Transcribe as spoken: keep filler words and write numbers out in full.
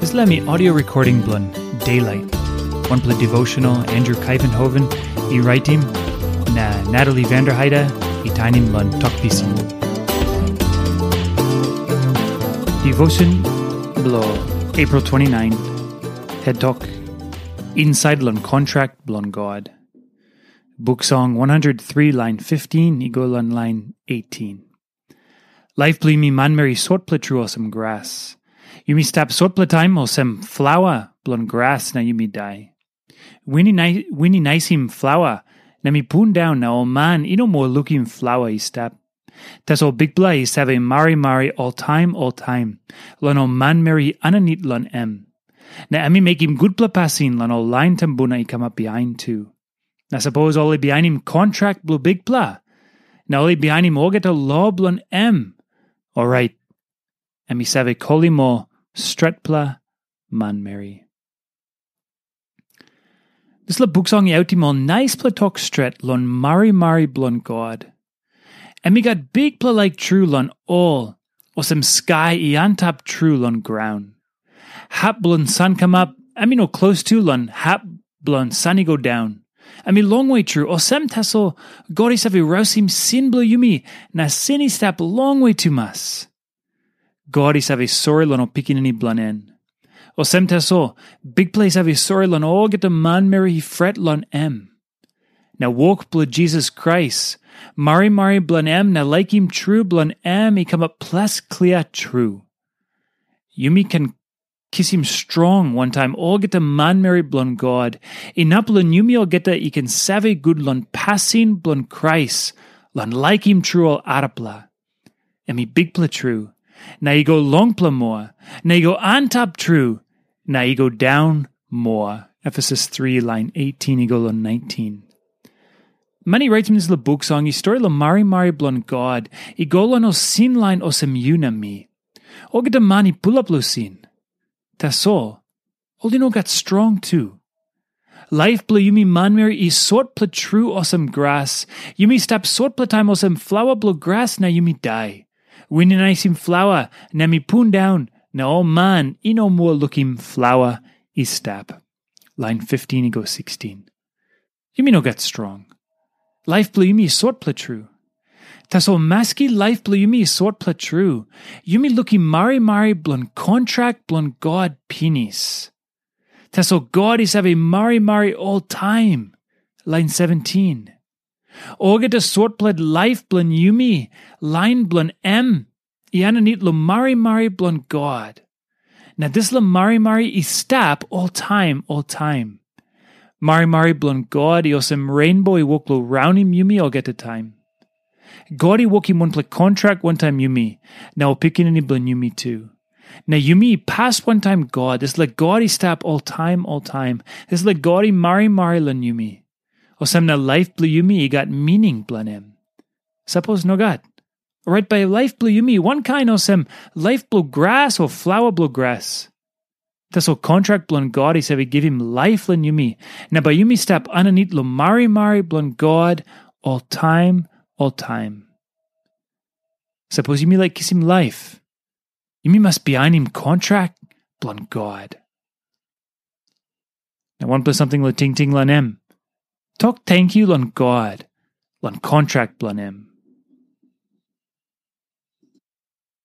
Dispela mi audio recording bilong Daylight. Wanpela devotional Andrew Kaivenhoven i raitim, na Natalie Vanderheide i tainim long Tok Pisin. Devotion bilong April twenty-nine, head tok, Inside long kontrak bilong God. Buk Song one hundred three, lain fifteen i go long lain eighteen. Laip bilong yumi manmeri sotpela tru olsem gras. Yumi stap sotpela taim olsem flaua bilong gras na yumi dai. Win i nai-, win i naisim flaua, na mi pundaun na ol man i no moa lukim flaua i stap. Tasol Bikpela i save marimari oltaim oltaim long ol manmeri aninit long em. Na em i mekim gutpela pasin long ol lain tumbuna i kamap bihain tu. Na sapos ol i bihainim kontrak bilong Bikpela, na ol i bihainim olgeta lo bilong em, orait em i save kolim ol stretpela manmeri. Dispela buk song i autim ol naispela tok stret long marimari bilong God. Em i gat bikpela laik tru long ol, olsem skai i antap tru long graun. Hap bilong san kamap, em i no klostu long hap bilong san i go daun. Em i longwe tru, olsem tasol God i save rausim sin bilong yumi, na sin i stap longwe tumas. God i save sori long ol pikinini bilong en. Olsem tasol, Bikpela i save sori long olgeta manmeri i fret long em. Na wok bilong Jisas Krais, marimari bilong em na laikim tru bilong em i kamap ples klia tru. Yumi ken kisim strong wantaim olgeta manmeri bilong God, inap long yumi olgeta i ken save gut long pasin bilong Krais, long laikim tru ol arapela. Em i bikpela tru, na i go longpela moa, na i go antap tru, na i go daun moa. Efesus three, lain eighteen i go long nineteen. Man i raitim dispela buk song i stori long marimari bilong God i go long ol sin lain olsem yu na mi. Olgeta man i pulap long sin. Tasol, ol i no gat strong tu. Laip bilong yumi manmeri i sotpela tru olsem gras. Yumi stap sotpela taim olsem flaua bilong gras na yumi dai. Win i naisim flaua, na mi pundaun, na ol man i no moa lukim flaua i stap. Lain fifteen i go sixteen. Yumi no gat strong. Laip bilong yumi i sotpela tru. Tasol maski laip bilong yumi i sotpela tru, yumi lukim marimari bilong kontrak bilong God pinis. Tasol God i save marimari oltaim. Lain seventeen. Olgeta sotpela laip bilong yumi, lain bilong em, i aninit long marimari bilong God. Na dispela marimari i stap oltaim oltaim. Marimari bilong God i olsem reinbo i wok long raunim yumi olgeta taim. God i wokim wanpela kontrak wantaim yumi, na ol pikinini bilong yumi tu. Na yumi i pas wantaim God, dispela God i stap oltaim oltaim, dispela God i marimari long yumi. Olsem na laip bilong yumi i gat mining bilong em. Sapos nogat, orait bai laip bilong yumi wankain olsem laip bilong gras o flaua bilong gras. Tasol kontrak bilong God i save givim laip long yumi, na bai yumi stap aninit long marimari bilong God oltaim oltaim. Sapos yumi laik kisim laip, yumi mas bihainim kontrak bilong God. Na wanpela samting long tingting long em. Tok tenkyu long God, long kontrak bilong em.